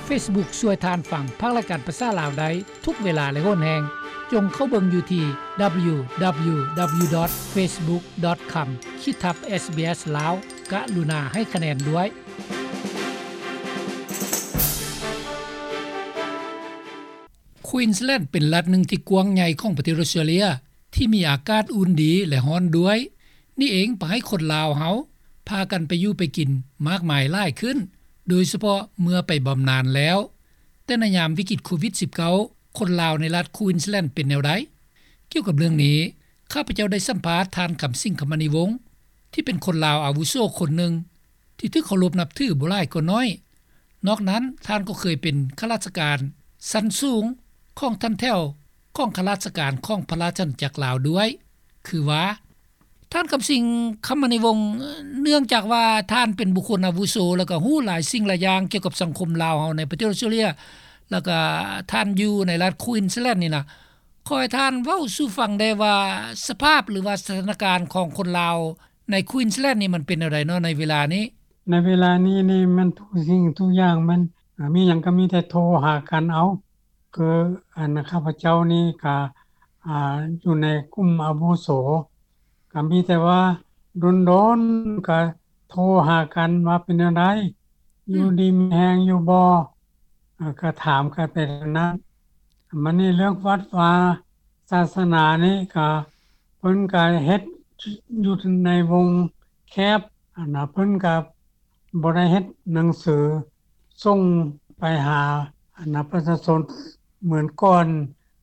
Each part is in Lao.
ເຟສບຸກຊ່ວຍທ່ານຟັງພາກລາຍການພາສາລາວໄດ້ທຸກເວລາ ແລະ ໂຫນແຮງ. ຈົ່ງເຂົ້າເບິ່ງຢູ່ທີ່ ດັບເບິນຢູ ດັບເບິນຢູ ດັບເບິນຢູ ດອດ ເຟສບຸກ ດອດ ຄອມ ຂີດທັບ ເອສບີເອສ ລາວ. ກະລຸນາໃຫ້ຄະແນນດ້ວຍ. ຄວີນສແລນ ເປັນລັດໜຶ່ງທີ່ກວ້າງໃຫຍ່ຂອງປະເທດອອສເຕຣເລຍ ທີ່ມີອາກາດອຸ່ນດີ ແລະ ຮ້ອນດ້ວຍ. ນີ້ເອງພາໃຫ້ຄົນລາວເຮົາພາກັນໄປຢູ່ໄປກິນມາກມາຍຫຼາຍຂຶ້ນ, ໂດຍສະເພາະເມື່ອໄປບຳນານແລ້ວ. ແຕ່ໃນຍາມວິກິດໂຄວິດສິບເກົ້າ ຄົນລາວໃນລັດຄວີນສແລນເປັນແນວໃດ? ກ່ຽວກັບເລື່ອງນີ້, ຂ້າພະເຈົ້າໄດ້ສຳພາດທ່ານ ຄຳສິງ ຄຳມະນີວົງ ທີ່ເປັນຄົນລາວອາວຸໂສຄົນໜຶ່ງ ທີ່ຖືກເຄົາລົບນັບຖືບໍ່ຫຼາຍກໍໜ້ອຍ. ນອກນັ້ນ, ທ່ານກໍເຄີຍເປັນຂ້າລາຊະການຊັ້ນສູງຂອງຖັນແຖວຂອງຂ້າລາຊະການຂອງພະລາຊະອານາຈັກລາວດ້ວຍ. ຄືວ່າ ທ່ານ ຄຳສິງ ຄຳມະນີວົງ, ເນື່ອງຈາກວ່າທ່ານເປັນບຸກຄົນອາວຸໂສ ແລ້ວກໍຮູ້ຫຼາຍສິ່ງຫຼາຍຢ່າງກ່ຽວກັບສັງຄົມລາວເຮົາໃນປະເທດອອສເຕຣເລຍ ແລ້ວກໍທ່ານຢູ່ໃນລັດຄວີນສແລນນີ້ນະ, ຂໍໃຫ້ທ່ານເວົ້າສູ່ຟັງແດ່ວ່າ ສະພາບ ຫຼືວ່າສະຖານະການຂອງຄົນລາວໃນຄວີນສແລນນີ້ ມັນເປັນແນວໃດເນາະໃນເວລານີ້? ໃນເວລານີ້ນີ້ ມັນທຸກສິ່ງທຸກຢ່າງມັນ ອາ ມີຫຍັງກໍມີແຕ່ໂທຫາກັນເອົາ. ຄືອັນຂ້າພະເຈົ້ານີ້ກະ ອາ ຢູ່ໃນກຸ່ມອາວຸໂສ ກະມີແຕ່ວ່າດົນໆກະໂທຫາກັນວ່າເປັນແນວໃດ ອືມ ຢູ່ດີມີແຮງຢູ່ບໍ່ ອາ ກະຖາມກັນໄປແນວນັ້ນ. ບາດນີ້ເລື່ອງວັດວາສາສະໜານີ້ກະ ເພິ່ນກະເຮັດຢູ່ໃນວົງແຄບ ອັນນະ ເພິ່ນກະບໍ່ໄດ້ເຮັດໜັງສື ສົ່ງໄປຫາ ອັນນະ ປະຊາຊົນເໝືອນກ່ອນ.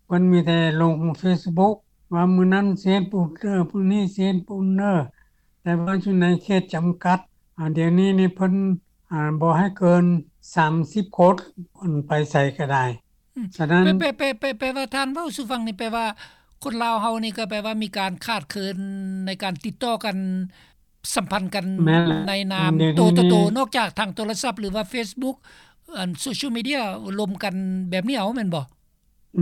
ເພິ່ນມີແຕ່ລົງເຟສບຸກວ່າມື້ນັ້ນຊິເຮັດບຸນເດີ ມື້ນີ້ຊິເຮັດບຸນເດີ ແຕ່ວ່າຢູ່ໃນເຂດຈຳກັດ. ອາ ດຽວນີ້ນີ້ເພິ່ນ ອາ ບໍ່ໃຫ້ເກີນສາມສິບຄົນ ອັນ ໄປໃສກໍໄດ້. ອືມ ສະນັ້ນ ແປ ແປ ແປ ແປ ແປວ່າທ່ານເວົ້າສູ່ຟັງນີ້ ແປວ່າຄົນລາວເຮົານີ້ກໍແປວ່າມີການຂາດເຂີນໃນການຕິດຕໍ່ກັນ ສຳພັນກັນ ແມ່ນແຫຼະ ໃນນາມ ອືມ ໂຕຕໍ່ໂຕ ດຽວນີ້ນີ້ ນອກຈາກທາງໂທລະສັບ ຫຼືວ່າເຟສບຸກ ອັນ ໂຊຊຽວມີເດຍ ລົມກັນແບບນີ້ເອົາ ແມ່ນບໍ່?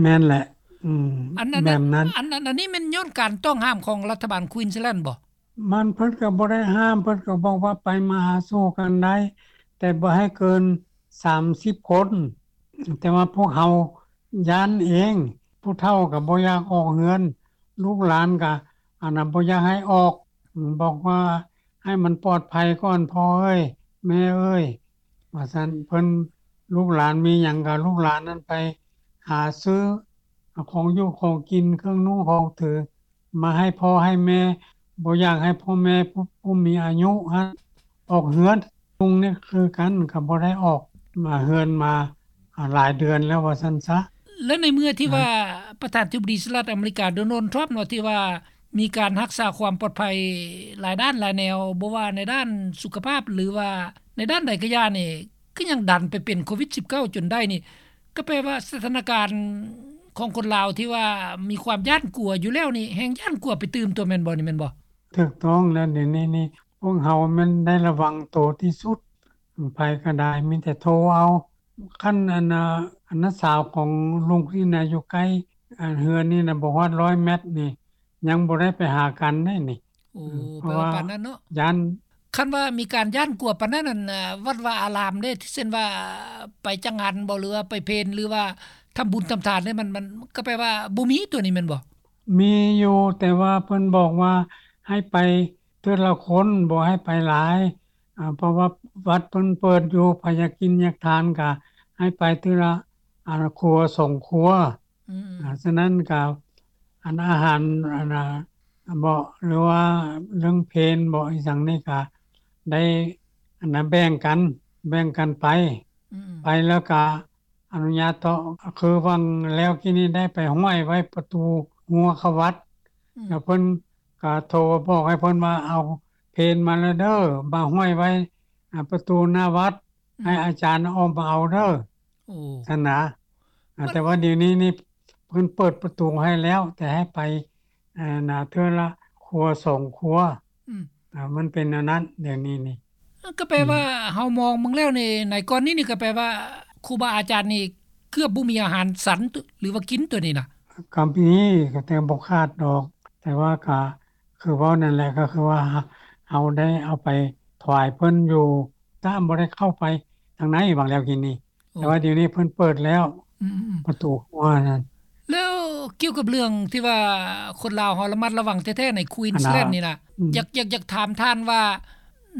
ແມ່ນແຫຼະ ອືມ ອັນນັ້ນ ແບບນັ້ນ ອັນ ອັນ ອັນນີ້ແມ່ນຍ້ອນການຕ້ອງຫ້າມຂອງລັດຖະບານຄວີນສແລນບໍ່? ມັນ ເພິ່ນກໍບໍ່ໄດ້ຫ້າມ ເພິ່ນກໍບອກວ່າໄປມາຫາສູ່ກັນໄດ້ ແຕ່ບໍ່ໃຫ້ເກີນສາມສິບຄົນ. ແຕ່ວ່າພວກເຮົາຢ້ານເອງ ຜູ້ເຖົ້າກໍບໍ່ຢາກອອກເຮືອນ ລູກຫຼານກໍ ອັນນະ ບໍ່ຢາກໃຫ້ອອກ ບອກວ່າໃຫ້ມັນປອດໄພກ່ອນ ພໍ່ເອີຍ ແມ່ເອີຍ ວ່າຊັ້ນ. ເພິ່ນ ລູກຫຼານມີຫຍັງກໍລູກຫຼານນັ້ນໄປຫາຊື້ຂອງຢູ່ຂອງກິນ ເຄື່ອງນຸ່ງຂອງຖື ມາໃຫ້ພໍ່ໃຫ້ແມ່ ບໍ່ຢາກໃຫ້ພໍ່ແມ່ຜູ້ ຜູ້ມີອາຍຸຫັ້ນອອກເຮືອນ. ລຸງນີ້ຄືກັນ ກໍບໍ່ໄດ້ອອກມາເຮືອນມາ ອາ ຫຼາຍເດືອນແລ້ວວ່າຊັ້ນຊະ. ແລະ ໃນເມື່ອທີ່ວ່າ ນະ ປະທານາທິບໍດີສະຫະລັດອາເມລິກາ ໂດນັລ ທຣອມ ເນາະ ທີ່ວ່າມີການຮັກສາຄວາມປອດໄພຫຼາຍດ້ານຫຼາຍແນວ ບໍ່ວ່າໃນດ້ານສຸຂະພາບ ຫຼືວ່າໃນດ້ານໃດກໍຢ່ານີ້ ຄືຍັງດັນໄປເປັນໂຄວິດສິບເກົ້າຈົນໄດ້ນີ້ ກໍແປວ່າສະຖານະການຂອງຄົນລາວທີ່ວ່າມີຄວາມຢ້ານກົວຢູ່ແລ້ວນີ້ ແຮ່ງຢ້ານກົວໄປຕື່ມຕົວ ແມ່ນບໍ່ນີ້ ແມ່ນບໍ່? ຖືກຕ້ອງແລ້ວ ດຽວນີ້ນີ້ ພວກເຮົາແມ່ນໄດ້ລະວັງໂຕທີ່ສຸດ ໃຜກໍໄດ້ມີແຕ່ໂທເອົາ. ຄັນອັນນາ ອັນນ້າສາວຂອງລຸງນີ້ນະ ຢູ່ໃກ້ ອັນເຮືອນນີ້ນະ ບໍ່ຮອດຮ້ອຍແມັດນີ້ ຍັງບໍ່ໄດ້ໄປຫາກັນເດ້ນີ້. ໂອ້ ເອີ ແປວ່າປານນັ້ນເນາະ ຢ້ານ. ຄັນວ່າມີການຢ້ານກົວປານນັ້ນ ອັນ ວັດວາອາລາມເດ້ ເຊັ່ນວ່າໄປຈັງຫັນບໍ ຫຼືວ່າໄປເພັນ ຫຼືວ່າທຳບຸນທຳທານເດ້ ມັນ ມັນກໍແປວ່າບໍ່ມີຕົວນີ້ແມ່ນບໍ່? ມີຢູ່ ແຕ່ວ່າເພິ່ນບອກວ່າໃຫ້ໄປເທື່ອລະຄົນ ບໍ່ໃຫ້ໄປຫຼາຍ ອາ ເພາະວ່າວັດເພິ່ນເປີດຢູ່ ໃຜຢາກກິນຢາກທານກໍໃຫ້ໄປເທື່ອລະ ອາ ຄົວສອງຄົວ. ອືມ ອາ ສະນັ້ນກໍ ອັນ ອາຫານ ອັນນະ ເບາະ ຫຼືວ່າເລື່ອງເພນເບາະ ອີ່ຫຍັງນີ້ກໍໄດ້ ອັນນະ ແບ່ງກັນ ແບ່ງກັນໄປ. ອືມ ໄປແລ້ວກໍອະນຸຍາດຕໍ່ ຄືຫວ່າງແລ້ວກີ້ນີ້ໄດ້ໄປຫ້ອຍໄວ້ປະຕູຮົ້ວເຂົ້າວັດ. ອືມ ແລ້ວເພິ່ນກໍໂທບອກໃຫ້ເພິ່ນວ່າ ເອົາເພນມາແລ້ວເດີ ມາຫ້ອຍໄວ້ ອາ ປະຕູໜ້າວັດ. ອືມ ໃຫ້ອາຈານອອກມາເອົາເດີ ໂອ້ ຊັ້ນນະ. ອາ ມັນ ແຕ່ວ່າດຽວນີ້ນີ້ເພິ່ນເປີດປະຕູໃຫ້ແລ້ວ ແຕ່ໃຫ້ໄປ ອາ ນະ ເທື່ອລະຄົວສອງຄົວ. ອືມ ອາ ມັນເປັນແນວນັ້ນດຽວນີ້ນີ້. ເອີ ກໍແປວ່າ ອືມ ເຮົາມອງເບິ່ງແລ້ວນີ້ ໃນກ່ອນນີ້ນີ້ ກໍແປວ່າຄູບາອາຈານນີ້ເກືອບບໍ່ມີອາຫານສັນ ຫຼືວ່າກິນຕົວນີ້ນະ? ກໍມີ ກໍແຕ່ບໍ່ຂາດດອກ ແຕ່ວ່າກໍຄືເວົ້ານັ້ນແຫຼະ ກໍຄືວ່າເຮົາໄດ້ເອົາໄປຖວາຍເພິ່ນຢູ່ ຕາມບໍ່ໄດ້ເຂົ້າໄປທາງໃນຫວ່າງແລ້ວກີ້ນີ້. ໂອ້ ແຕ່ວ່າດຽວນີ້ເພິ່ນເປີດແລ້ວ ອືມໆໆ ປະຕູຂົວນັ້ນ. ແລ້ວກ່ຽວກັບເລື່ອງທີ່ວ່າຄົນລາວເຮົາລະມັດລະວັງແທ້ໆໃນ Queensland ນີ້ນະ ອືມ ຢາກ ຢາກ ຢາກຖາມທ່ານວ່າ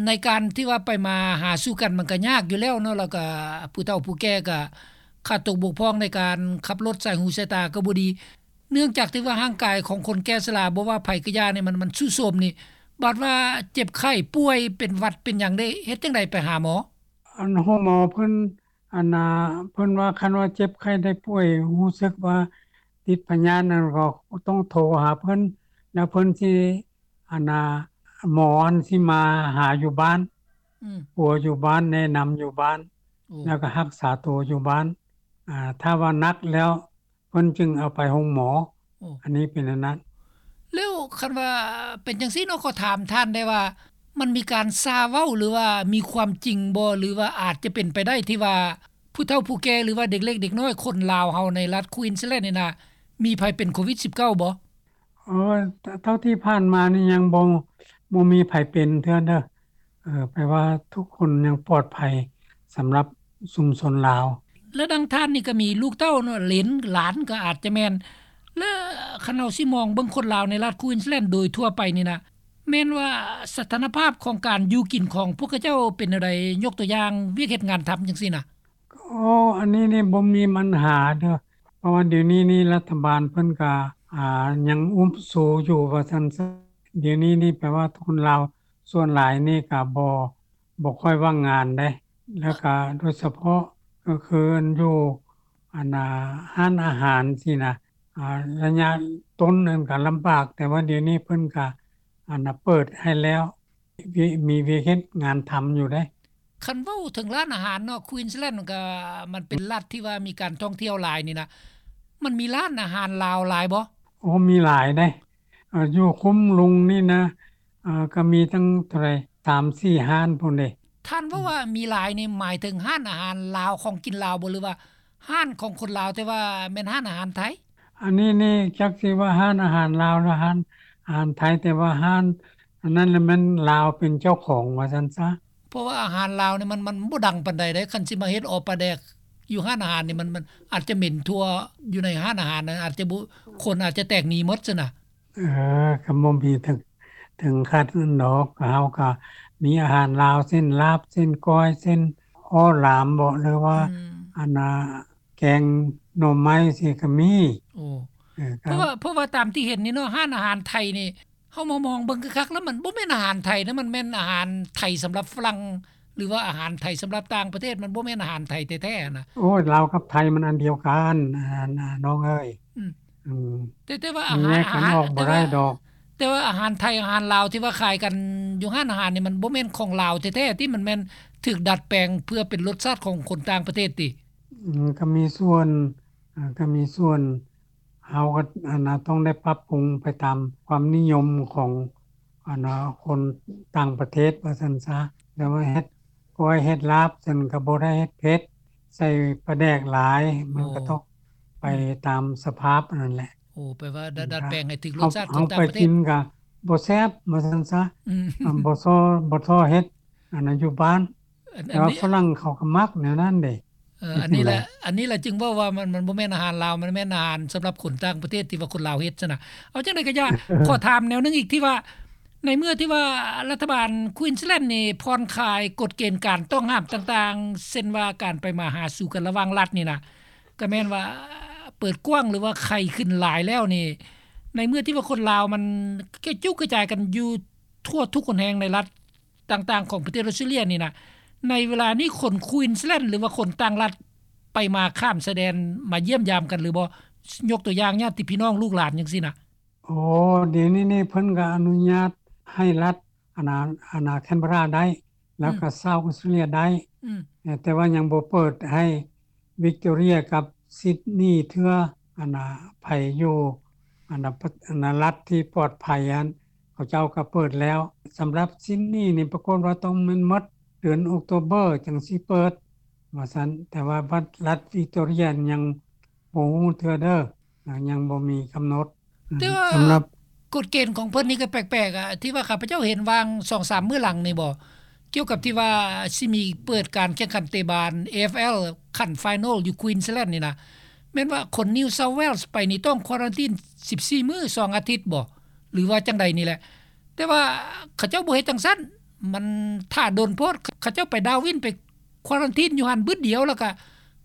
ໃນການທີ່ວ່າໄປມາຫາສູ່ກັນມັນກໍຍາກຢູ່ແລ້ວເນາະ ແລ້ວກໍຜູ້ເຖົ້າຜູ້ແກ່ກໍຂາດຕົກບົກຜ່ອງໃນການຂັບລົດ ສາຍຫູສາຍຕາກໍບໍ່ດີ ເນື່ອງຈາກທີ່ວ່າຮ່າງກາຍຂອງຄົນແກ່ຊະລາ ບໍ່ວ່າໃຜກໍຢ່ານີ້ ມັນ ມັນຊຸໂຊມນີ້ ບາດວ່າເຈັບໄຂ້ປ່ວຍເປັນຫວັດເປັນຫຍັງໄດ້ ເຮັດຈັ່ງໃດໄປຫາໝໍ? ອັນໂຮງໝໍເພິ່ນ ອັນນ່າ ເພິ່ນວ່າຄັນວ່າເຈັບໄຂ້ໄດ້ປ່ວຍ ຮູ້ສຶກວ່າຕິດພະຍາດນັ້ນ ກໍຕ້ອງໂທຫາເພິ່ນ ແລ້ວເພິ່ນຊິ ອັນນ່າ ໝໍອັນຊິມາຫາຢູ່ບ້ານ ອືມ ປົວຢູ່ບ້ານ ແນະນຳຢູ່ບ້ານ ໂອ້ ແລ້ວກໍຮັກສາໂຕຢູ່ບ້ານ ອາ ຖ້າວ່າໜັກແລ້ວ ເພິ່ນຈຶ່ງເອົາໄປໂຮງໝໍ. ໂອ້ ອັນນີ້ເປັນອັນນັ້ນ. ແລ້ວຄັນວ່າເປັນຈັ່ງຊີ້ເນາະ ຂໍຖາມທ່ານໄດ້ວ່າ ມັນມີການຊ່າເວົ້າ ຫຼືວ່າມີຄວາມຈິງບໍ່ ຫຼືວ່າອາດຈະເປັນໄປໄດ້ທີ່ວ່າ ຜູ້ເຖົ້າຜູ້ແກ່ ຫຼືວ່າເດັກເລັກເດັກນ້ອຍ ຄົນລາວເຮົາໃນລັດ Queensland ນີ້ນະ ມີໃຜເປັນໂຄວິດສິບເກົ້າບໍ່? ເອີ ເທົ່າທີ່ຜ່ານມານີ້ຍັງບໍ່ ບໍ່ມີໃຜເປັນເທື່ອເດີ. ເອີ ແປວ່າທຸກຄົນຍັງປອດໄພສຳລັບຊຸມຊົນລາວ. ແລະ ດັ່ງທ່ານນີ້ກໍມີລູກເຕົ້າເນາະ ເຫຼນຫຼານກໍອາດຈະແມ່ນ ແລະ ຄັນເຮົາຊິມອງເບິ່ງຄົນລາວໃນລັດ Queensland ໂດຍທົ່ວໄປນີ້ນະ ແມ່ນວ່າສະຖານະພາບຂອງການຢູ່ກິນຂອງພວກເຂົາເຈົ້າເປັນແນວໃດ? ຍົກຕົວຢ່າງວຽກເຮັດງານທຳຈັ່ງຊີ້ນະ. ໂອ້ ອັນນີ້ນີ້ບໍ່ມີບັນຫາເດີ ເພາະວ່າດຽວນີ້ນີ້ລັດຖະບານເພິ່ນກະ ອາ ຍັງອຸບຊູຢູ່ວ່າຊັ້ນຊະ. ດຽວນີ້ນີ້ແປວ່າຄົນລາວສ່ວນຫຼາຍນີ້ກະບໍ່ ບໍ່ຄ່ອຍວ່າງງານເດ້ ແລ້ວກະໂດຍສະເພາະກໍຄືອັນຢູ່ ອັນນ່າ ຮ້ານອາຫານຊີ້ນະ ອາ ໄລຍະຕົ້ນນັ້ນກະລຳບາກ ແຕ່ວ່າດຽວນີ້ເພິ່ນກະ ອັນນ່າ ເປີດໃຫ້ແລ້ວ ມີວຽກເຮັດງານທຳຢູ່ເດ້. ຄັນເວົ້າເຖິງຮ້ານອາຫານເນາະ Queensland ມັນກະ ມັນເປັນລັດທີ່ວ່າມີການທ່ອງທ່ຽວຫຼາຍນີ້ນະ ມັນມີຮ້ານອາຫານລາວຫຼາຍບໍ່? ໂອ້ ມີຫຼາຍເດ້ ເອີ ຢູ່ຄຸ້ມລຸງນີ້ນະ ເອີ ກໍມີຕັ້ງເທົ່າໃດ ສາມສີ່ຮ້ານພຸ້ນເດ້. ທ່ານເວົ້າວ່າມີຫຼາຍນີ້ ໝາຍເຖິງຮ້ານອາຫານລາວ ຂອງກິນລາວບໍ່ ຫຼືວ່າຮ້ານຂອງຄົນລາວ ແຕ່ວ່າແມ່ນຮ້ານອາຫານໄທ? ອັນນີ້ນີ້ຈັກຊິວ່າຮ້ານອາຫານລາວ ຫຼືຮ້ານອາຫານໄທ ແຕ່ວ່າຮ້ານອັນນັ້ນລະແມ່ນລາວເປັນເຈົ້າຂອງວ່າຊັ້ນຊະ. ເພາະວ່າອາຫານລາວນີ້ມັນ ມັນບໍ່ດັງປານໃດເດ້ ຄັນຊິມາເຮັດເອົາປາແດກຢູ່ຮ້ານອາຫານນີ້ ມັນ ມັນອາດຈະເໝັນທົ່ວຢູ່ໃນຮ້ານອາຫານນັ້ນ ອາດຈະບໍ່ ຄົນອາດຈະແຕກໜີໝົດຊັ້ນນະ. ເອີ ກໍບໍ່ມີເຖິງ ເຖິງຂະໜາດນັ້ນດອກ ເຮົາກໍມີອາຫານລາວ ເຊັ່ນ ລາບ ເຊັ່ນ ກ້ອຍ ເຊັ່ນ ໂອລາມບໍ ຫຼືວ່າ ອືມ ອັນນ່າ ແກງໜໍ່ໄມ້ຊີ້ກໍມີ. ໂອ້ ເອີ ເພາະວ່າ ເພາະວ່າຕາມທີ່ເຫັນນີ້ເນາະ ຮ້ານອາຫານໄທນີ້ ເຮົາມາມອງເບິ່ງຄັກໆ ແລ້ວມັນບໍ່ແມ່ນອາຫານໄທນະ ມັນແມ່ນອາຫານໄທສຳລັບຝຣັ່ງ ຫຼືວ່າອາຫານໄທສຳລັບຕ່າງປະເທດ ມັນບໍ່ແມ່ນອາຫານໄທແທ້ໆນະ. ໂອ້ຍ ລາວກັບໄທມັນອັນດຽວກັນ ນ້ອງເອີຍ. ອືມ ອືມ ແຕ່ ແຕ່ວ່າອາຫານ ແຍກກັນອອກບໍ່ໄດ້ດອກ ແຕ່ວ່າອາຫານໄທ ອາຫານລາວທີ່ວ່າຂາຍກັນຢູ່ຮ້ານອາຫານນີ້ ມັນບໍ່ແມ່ນຂອງລາວແທ້ໆຕິ ມັນແມ່ນຖືກດັດແປງເພື່ອເປັນລົດຊາດຂອງຄົນຕ່າງປະເທດຕິ? ອືມ ກໍມີສ່ວນ ອ່າ ກໍມີສ່ວນ ເຮົາກໍ ອັນນ່າ ຕ້ອງໄດ້ປັບປຸງໄປຕາມຄວາມນິຍົມຂອງ ອັນນ່າ ຄົນຕ່າງປະເທດວ່າຊັ້ນຊະ. ແຕ່ວ່າເຮັດກ້ອຍເຮັດລາບຊັ້ນກໍບໍ່ໄດ້ເຮັດເຜັດ ໃສ່ປາແດກຫຼາຍ ມັນກໍ ໂອ້ ຕ້ອງໄປ ອືມ ຕາມສະພາບອັນນັ້ນແຫຼະ. ໂອ້ ແປວ່າ ອືມ ດັດແປງໃຫ້ຖືກລົດຊາດຂອງຕ່າງປະເທດ ເຮົາໄປກິນກໍບໍ່ແຊບວ່າຊັ້ນຊະ. ອືມ ອາ ບໍ່ຊໍ ບໍ່ຊໍເຮັດ ອັນນັ້ນຢູ່ບ້ານ ແຕ່ວ່າຝຣັ່ງເຂົາກໍມັກແນວນັ້ນເດ້. ເອີ ອັນນີ້ແຫຼະ ອັນນີ້ແຫຼະຈຶ່ງເວົ້າວ່າມັນ ມັນບໍ່ແມ່ນອາຫານລາວ ມັນແມ່ນອາຫານສຳລັບຄົນຕ່າງປະເທດທີ່ວ່າຄົນລາວເຮັດຊັ້ນນະ. ເອົາຈັ່ງໃດກໍຢ່າ ຂໍຖາມແນວໜຶ່ງອີກ ທີ່ວ່າໃນເມື່ອທີ່ວ່າລັດຖະບານ Queensland ນີ້ຜ່ອນຄາຍກົດເກນການຕ້ອງຫ້າມຕ່າງໆ ເຊັ່ນວ່າການໄປມາຫາສູ່ກັນລະຫວ່າງລັດນີ້ນະ ກໍແມ່ນວ່າເປີດກວ້າງ ຫຼືວ່າໄຂ້ຂຶ້ນຫຼາຍແລ້ວນີ້ ໃນເມື່ອທີ່ວ່າຄົນລາວມັນກະຈຸກກະຈາຍກັນຢູ່ທົ່ວທຸກຫົນແຫ່ງໃນລັດ ຕ່າງໆຂອງປະເທດອອສເຕຣເລັຍນີ້ນະ ໃນເວລານີ້ຄົນ Queensland ຫຼືວ່າຄົນຕ່າງລັດໄປມາຂ້າມຊາຍແດນມາຢ້ຽມຢາມກັນຫຼືບໍ່? ຍົກຕົວຢ່າງຍາດຕິພີ່ນ້ອງລູກຫຼານຈັ່ງຊີ້ນະ. ໂອ້ ດຽວນີ້ນີ້ເພິ່ນກໍອະນຸຍາດໃຫ້ລັດ ອັນນ່າ ອັນນ່າ Canberra ໄດ້ ແລ້ວກໍ South Australia ໄດ້ ອືມ ແຕ່ວ່າຍັງບໍ່ເປີດໃຫ້ Victoria ກັບ Sydney ເທື່ອ. ອັນນ່າ ໃຜຢູ່ ອັນນ່າ ລັດທີ່ປອດໄພຫັ້ນ ເຂົາເຈົ້າກໍເປີດແລ້ວ. ສຳລັບ Sydney ນີ້ປາກົດວ່າຕ້ອງແມ່ນໝົດເດືອນ October ຈັ່ງຊິເປີດວ່າຊັ້ນ ແຕ່ວ່າລັດ Victoria ຍັງບໍ່ຮູ້ເທື່ອເດີ ຍັງບໍ່ມີກຳນົດ. ແຕ່ວ່າ ສຳລັບ ກົດເກນຂອງເພິ່ນນີ້ກໍແປກໆ ອະ ທີ່ວ່າຂ້າພະເຈົ້າເຫັນຫວ່າງສອງສາມມື້ຫຼັງນີ້ບໍ ກ່ຽວກັບທີ່ວ່າຊິມີເປີດການແຂ່ງຂັນເຕະບານ AFL ຂັ້ນ final ຢູ່ Queensland ນີ້ນະ ແມ່ນວ່າຄົນ New South Wales ໄປນີ້ຕ້ອງ quarantine ສິບສີ່ມື້ ສອງອາທິດບໍ ຫຼືວ່າຈັ່ງໃດນີ້ແຫຼະ ແຕ່ວ່າເຂົາເຈົ້າບໍ່ເຮັດຈັ່ງຊັ້ນ ມັນຖ້າດົນໂພດ ເຂົາເຈົ້າໄປ Darwin ໄປ quarantine ຢູ່ຫັ້ນບຶດດຽວ ແລ້ວກະ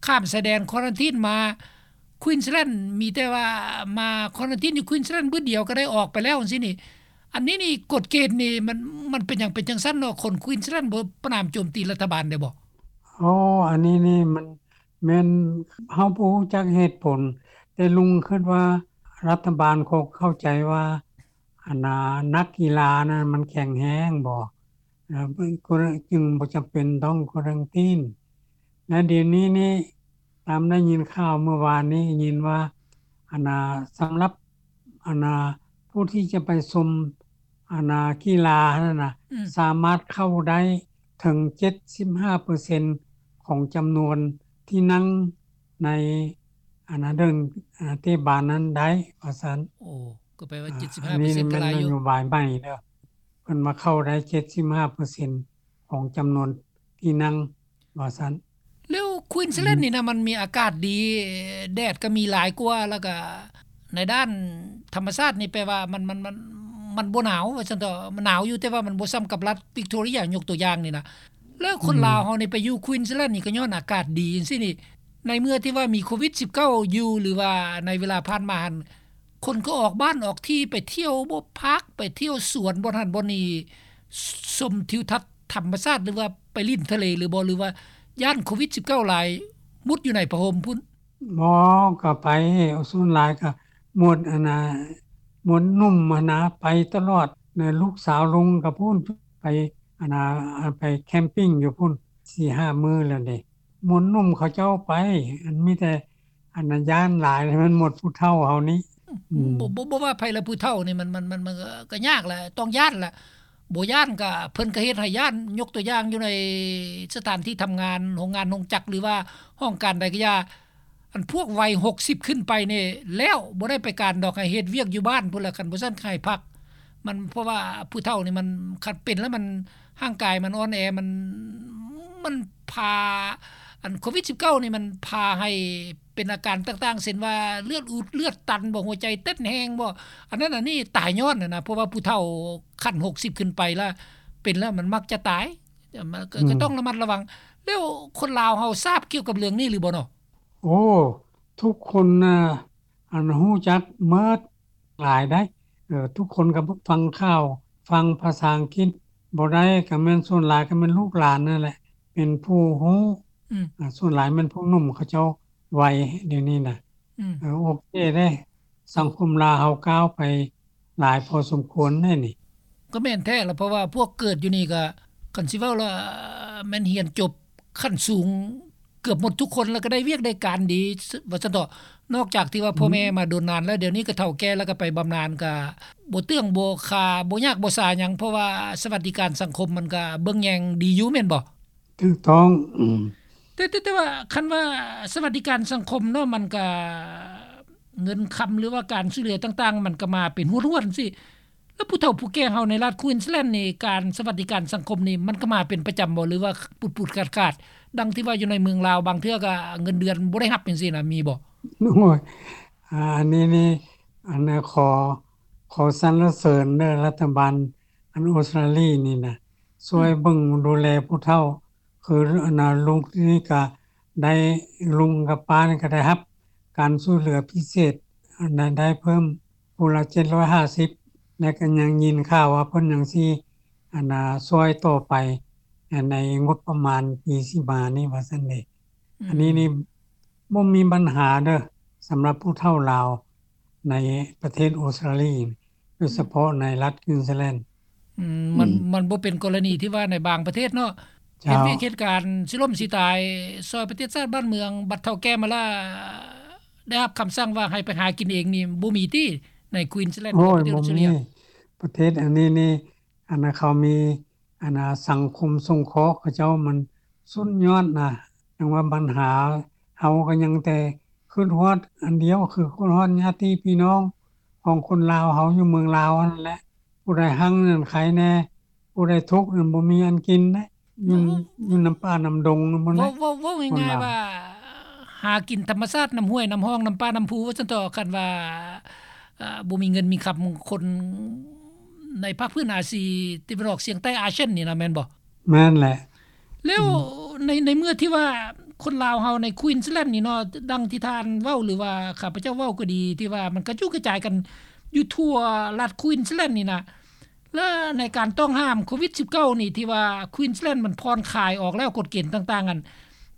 ຂ້າມຊາຍແດນ quarantine ມາ Queensland ມີແຕ່ວ່າມາ quarantine ຢູ່ Queensland ບຶດດຽວກະໄດ້ອອກໄປແລ້ວຈັ່ງຊີ້ນີ້ ອັນນີ້ນີ້ກົດເກນນີ້ ມັນ ມັນເປັນຫຍັງເປັນຈັ່ງຊັ້ນເນາະ ຄົນ Queensland ບໍ່ປະນາມໂຈມຕີລັດຖະບານໄດ້ບໍ່? ອໍ ອັນນີ້ນີ້ມັນແມ່ນເຮົາບໍ່ຮູ້ຈັກເຫດຜົນ ແຕ່ລຸງຄິດວ່າລັດຖະບານຄົງເຂົ້າໃຈວ່າ ອັນນ່າ ນັກກິລານັ້ນມັນແຂງແຮງບໍ ແລ້ວຈຶ່ງບໍ່ຈຳເປັນຕ້ອງ quarantine ແລະ ດຽວນີ້ນີ້ ຕາມໄດ້ຍິນຂ່າວມື້ວານນີ້ຍິນວ່າ ອັນນ່າ ສຳລັບ ອັນນ່າ ຜູ້ທີ່ຈະໄປຊົມ ອັນນ່າ ກິລາຫັ້ນນະ ອືມ ສາມາດເຂົ້າໄດ້ເຖິງເຈັດສິບຫ້າເປີເຊັນຂອງຈຳນວນທີ່ນັ່ງໃນ ອັນນ່າ ເດີ່ນ ອັນນ່າ ເຕະບານນັ້ນໄດ້ ວ່າຊັ້ນ. ໂອ້ ກໍແປວ່າ ເຈັດສິບຫ້າເປີເຊັນ ກໍຫຼາຍຢູ່. ອັນນີ້ແມ່ນນະໂຍບາຍໃໝ່ເດີ້ ເພິ່ນວ່າເຂົ້າໄດ້ເຈັດສິບຫ້າເປີເຊັນຂອງຈຳນວນທີ່ນັ່ງ ວ່າຊັ້ນ. ແລ້ວ Queensland ອືມ ນີ້ນະ ມັນມີອາກາດດີ ແດດກໍມີຫຼາຍກວ່າ ແລ້ວກໍໃນດ້ານທຳມະຊາດນີ້ ແປວ່າມັນ ມັນ ມັນ ມັນບໍ່ໜາວ ວ່າຊັ້ນເຖາະ ມັນໜາວຢູ່ ແຕ່ວ່າມັນບໍ່ສ່ຳກັບລັດ Victoria ຍົກຕົວຢ່າງນີ້ນະ. ແລ້ວຄົນ ອືມ ລາວເຮົານີ້ໄປຢູ່ Queensland ນີ້ກໍຍ້ອນອາກາດດີຈັ່ງຊີ້ນີ້ ໃນເມື່ອທີ່ວ່າມີໂຄວິດສິບເກົ້າຢູ່ ຫຼືວ່າໃນເວລາຜ່ານມາຫັ້ນ ຄົນກໍອອກບ້ານອອກທີ່ ໄປທ່ຽວບໍ່ພັກ ໄປທ່ຽວສວນ ບ່ອນຫັ້ນບ່ອນນີ້ ຊົມທິວທັດທຳມະຊາດ ຫຼືວ່າໄປຫຼິ້ນທະເລຫຼືບໍ່ ຫຼືວ່າຢ້ານໂຄວິດສິບເກົ້າຫຼາຍ ມຸດຢູ່ໃນຜ້າຫົ່ມພຸ້ນ? ບໍ່ ກໍໄປ ສ່ວນຫຼາຍກໍໝົດ ອັນນ່າ ໝົດໜຸ່ມຫັ້ນນະ ໄປຕະຫຼອດ ແລະ ລູກສາວລຸງກໍພຸ້ນ ໄປ ອັນນ່າ ໄປແຄມປິງຢູ່ພຸ້ນ ສີ່ຫ້າມື້ແລ້ວເດ. ໝົດໜຸ່ມເຂົາເຈົ້າໄປ ອັນມີແຕ່ ອັນນັ້ນຢ້ານຫຼາຍ ແລ້ວມັນໝົດຜູ້ເຖົ້າເຮົານີ້. ອືມ ບໍ່ ບໍ່ ບໍ່ວ່າໃຜລະ ຜູ້ເຖົ້ານີ້ມັນ ມັນ ມັນ ມັນກໍຍາກແຫຼະ ຕ້ອງຢ້ານແຫຼະ ບໍ່ຢ້ານກໍ ເພິ່ນກໍເຮັດໃຫ້ຢ້ານ ຍົກຕົວຢ່າງຢູ່ໃນສະຖານທີ່ທຳງານ ໂຮງງານໂຮງຈັກ ຫຼືວ່າຫ້ອງການໃດກໍຢ່າ ອັນພວກໄວຫົກສິບຂຶ້ນໄປນີ້ແລ້ວ ບໍ່ໄດ້ໄປການດອກ ໃຫ້ເຮັດວຽກຢູ່ບ້ານພຸ້ນລະ ຄັນບໍ່ຊັ້ນໃຫ້ພັກ ມັນ ເພາະວ່າຜູ້ເຖົ້ານີ້ມັນ ຄັນເປັນແລ້ວມັນ ຮ່າງກາຍມັນອ່ອນແອ ມັນ ມັນພາ ອັນໂຄວິດສິບເກົ້ານີ້ມັນພາໃຫ້ເປັນອາການຕ່າງໆ ເຊັ່ນວ່າເລືອດອຸດເລືອດຕັນບໍ ຫົວໃຈເຕັ້ນແຮງບໍ ອັນນັ້ນອັນນີ້ຕາຍຍ້ອນຫັ້ນນະ ເພາະວ່າຜູ້ເຖົ້າຂັ້ນຫົກສິບຂຶ້ນໄປລະ ເປັນແລ້ວມັນມັກຈະຕາຍ ມັນກໍ ອືມ ກໍຕ້ອງລະມັດລະວັງ. ແລ້ວຄົນລາວເຮົາຊາບກ່ຽວກັບເລື່ອງນີ້ຫຼືບໍ່ເນາະ? ໂອ້ ທຸກຄົນນະ ອັນຮູ້ຈັກໝົດ ຫຼາຍໃດ໋ ເອີ ທຸກຄົນກໍຟັງຂ່າວ ຟັງພາສາອັງກິດບໍ່ໄດ້ ກໍແມ່ນສ່ວນຫຼາຍກໍແມ່ນລູກຫຼານນັ້ນແຫຼະ ເປັນຜູ້ຮູ້ ອືມ ອາ ສ່ວນຫຼາຍແມ່ນຜູ້ໜຸ່ມເຂົາເຈົ້າໄວດຽວນີ້ນະ ອືມ ເອີ ໂອເຄເດ້ ສັງຄົມລາວເຮົາກ້າວໄປຫຼາຍພໍສົມຄວນເດ້ນີ້. ກໍແມ່ນແທ້ລະ ເພາະວ່າພວກເກີດຢູ່ນີ້ກໍ ຄັນຊິເວົ້າລະແມ່ນຮຽນຈົບ ຂັ້ນສູງເກືອບໝົດທຸກຄົນ ແລ້ວກໍໄດ້ວຽກໄດ້ການດີ ວ່າຊັ້ນເຖາະ ນອກຈາກທີ່ວ່າ ອືມ ພໍ່ແມ່ມາດົນນານແລ້ວ ດຽວນີ້ກໍເຖົ້າແກ່ ແລ້ວກໍໄປບຳນານ ກໍບໍ່ເຕື້ອງບໍ່ຄາ ບໍ່ຍາກບໍ່ສາຫຍັງ ເພາະວ່າສະຫວັດດີການສັງຄົມມັນກໍເບິ່ງແຍງດີຢູ່ ແມ່ນບໍ່? ຖືກຕ້ອງ ອືມ ແຕ່ ແຕ່ ແຕ່ວ່າຄັນວ່າສະຫວັດດີການສັງຄົມເນາະ ມັນກໍ ເງິນຄຳ ຫຼືວ່າການຊ່ວຍເຫຼືອຕ່າງໆ ມັນກໍມາເປັນຮວດໆ ຈັ່ງຊີ້ ແລ້ວຜູ້ເຖົ້າຜູ້ແກ່ເຮົາໃນລັດ Queensland ນີ້ ການສະຫວັດດີການສັງຄົມນີ້ ມັນກໍມາເປັນປະຈຳບໍ່ ຫຼືວ່າປຸດໆຂາດໆ ດັ່ງທີ່ວ່າຢູ່ໃນເມືອງລາວ ບາງເທື່ອກໍເງິນເດືອນບໍ່ໄດ້ຮັບຈັ່ງຊີ້ນະ ມີບໍ່? ໂອ້ຍ ອາ ອັນນີ້ນີ້ ອັນ ຂໍ ຂໍສັນລະເສີນເດີ ລັດຖະບານ ອັນ ອົດສະຕຣາລີນີ້ນະ ຊ່ວຍ ອືມ ເບິ່ງດູແລຜູ້ເຖົ້າ ຄື ອັນນ່າ ລຸງນີ້ກະໄດ້ ລຸງກັບປ້ານີ້ກະໄດ້ຮັບການຊ່ວຍເຫຼືອພິເສດ ອັນນັ້ນໄດ້ເພີ່ມຜູ້ລະເຈັດຮ້ອຍຫ້າສິບ ແລະກະຍັງຍິນຂ່າວວ່າເພິ່ນຍັງຊິ ອັນນ່າ ຊ່ວຍຕໍ່ໄປ ໃນງົບປະມານປີຊິມານີ້ວ່າຊັ້ນເດ. ອືມ ອັນນີ້ນີ້ບໍ່ມີບັນຫາເດີ ສຳລັບຜູ້ເຖົ້າລາວໃນປະເທດອົດສະຕຣາລີ ໂດຍສະເພາະໃນລັດ Queensland. ອືມ ມັນ ອືມ ມັນບໍ່ເປັນກໍລະນີທີ່ວ່າໃນບາງປະເທດເນາະ ເຈົ້າ ເຮັດວຽກເຮັດການຊິລົ້ມຊິຕາຍ ຊ່ອຍປະເທດຊາດບ້ານເມືອງ ບັດເຖົ້າແກ່ມາລະ ໄດ້ຮັບຄຳສັ່ງວ່າໃຫ້ໄປຫາກິນເອງນີ້ ບໍ່ມີຕິໃນ Queensland ໂອ້ຍ ປະເທດ ບໍ່ມີ Australia ປະເທດອັນນີ້ນີ້ ອັນເຂົາມີ ອັນ ສັງຄົມສົງເຄາະເຂົາເຈົ້າມັນສຸດຍອດນະ. ຈັ່ງວ່າບັນຫາເຮົາກໍຍັງແຕ່ຄິດຮອດອັນດຽວ ຄືຄິດຮອດຍາດຕິພີ່ນ້ອງຂອງຄົນລາວເຮົາຢູ່ເມືອງລາວຫັ້ນແຫຼະ ຜູ້ໃດຮັ່ງນັ້ນໃຄແດ່ ຜູ້ໃດທຸກນັ້ນບໍ່ມີອັນກິນເດ້ ຢູ່ ເວົ້າ ຢູ່ນຳປ່ານຳດົງນຳ ເວົ້າ ເວົ້າ ເວົ້າງ່າຍໆວ່າ ຫາກິນທຳມະຊາດ ນ້ຳຫ້ວຍ ນ້ຳຮ່ອງ ນ້ຳປ່າ ນ້ຳພູ ວ່າຊັ້ນເຖາະ. ຄັນວ່າ ເອີ ບໍ່ມີເງິນມີຄຳ ຄົນໃນພາກພື້ນອາຊີຕາເວັນອອກສຽງໃຕ້ ອາຊຽນນີ້ນະ ແມ່ນບໍ່? ແມ່ນແຫຼະ. ແລ້ວ ອືມ ໃນ ໃນເມື່ອທີ່ວ່າຄົນລາວເຮົາໃນ Queensland ນີ້ເນາະ ດັ່ງທີ່ທ່ານເວົ້າ ຫຼືວ່າຂ້າພະເຈົ້າເວົ້າກໍດີ ທີ່ວ່າມັນກະຈຸກະຈາຍກັນຢູ່ທົ່ວລັດ Queensland ນີ້ນະ ແລະ ໃນການຕ້ອງຫ້າມໂຄວິດສິບເກົ້ານີ້ ທີ່ວ່າ Queensland ມັນຜ່ອນຄາຍອອກແລ້ວ ກົດເກນຕ່າງໆ ອັນ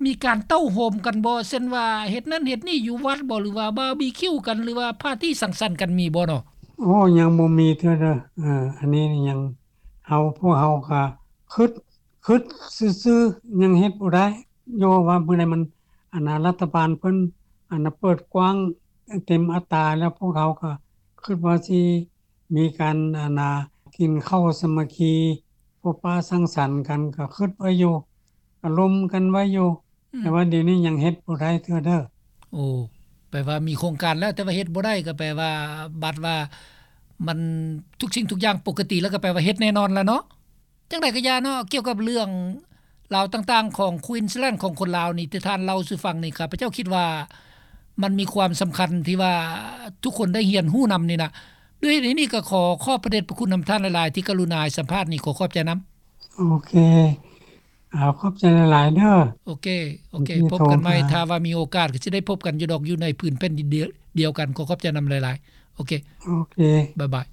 ມີການເຕົ້າໂຮມກັນບໍ່? ເຊັ່ນວ່າເຮັດນັ້ນເຮັດນີ້ຢູ່ວັດບໍ່ ຫຼືວ່າບາບີຄິວກັນ ຫຼືວ່າປາຕີ້ສັງສັນກັນ ມີບໍ່ເນາະ? ໂອ້ ຍັງບໍ່ມີເທື່ອເດີ. ເອີ ອັນນີ້ຍັງ ເຮົາ ພວກເຮົາກະຄຶດ ຄຶດຊື່ໆ ຍັງເຮັດບໍ່ໄດ້. ຍ້ອນວ່າມື້ໃດມັນ ອັນນ່າ ລັດຖະບານເພິ່ນ ອັນນ່າ ເປີດກວ້າງເຕັມອັດຕາແລ້ວ ພວກເຮົາກະຄຶດວ່າຊິມີການ ອັນນ່າ ກິນເຂົ້າສາມັກຄີ ພົບປະສັງສັນກັນ ກະຄຶດໄວ້ຢູ່ ກະລົມກັນໄວ້ຢູ່. ອືມ ແຕ່ວ່າດຽວນີ້ຍັງເຮັດບໍ່ໄດ້ເທື່ອເດີ. ໂອ້ ແປວ່າມີໂຄງການແລ້ວ ແຕ່ວ່າເຮັດບໍ່ໄດ້ ກໍແປວ່າ ບັດວ່າມັນທຸກສິ່ງທຸກຢ່າງປົກກະຕິແລ້ວ ກໍແປວ່າເຮັດແນ່ນອນລະເນາະ. ຈັ່ງໃດກໍຢ່າເນາະ ກ່ຽວກັບເລື່ອງລາວຕ່າງໆຂອງ Queensland ຂອງຄົນລາວນີ້ ທີ່ທ່ານເລົ່າສູ່ຟັງນີ້ ຂ້າພະເຈົ້າຄິດວ່າມັນມີຄວາມສຳຄັນທີ່ວ່າທຸກຄົນໄດ້ຮຽນຮູ້ນຳນີ້ນະ. ດ້ວຍເຫດນີ້ກໍຂໍຂອບພະເດດພະຄຸນນຳທ່ານຫຼາຍໆ ທີ່ກະລຸນາໃຫ້ສຳພາດນີ້ ຂໍຂອບໃຈນຳ. ໂອເຄ ເອົາ ຂອບໃຈຫຼາຍໆເດີ. ໂອເຄ ໂອເຄ ພົບກັນໃໝ່ ຖ້າວ່າມີໂອກາດກໍຊິໄດ້ພົບກັນຢູ່ດອກ ຢູ່ໃນພື້ນແຜ່ນດິນດຽວກັນ. ຂໍຂອບໃຈນຳຫຼາຍໆ. ໂອເຄ ໂອເຄ ບາຍບາຍ.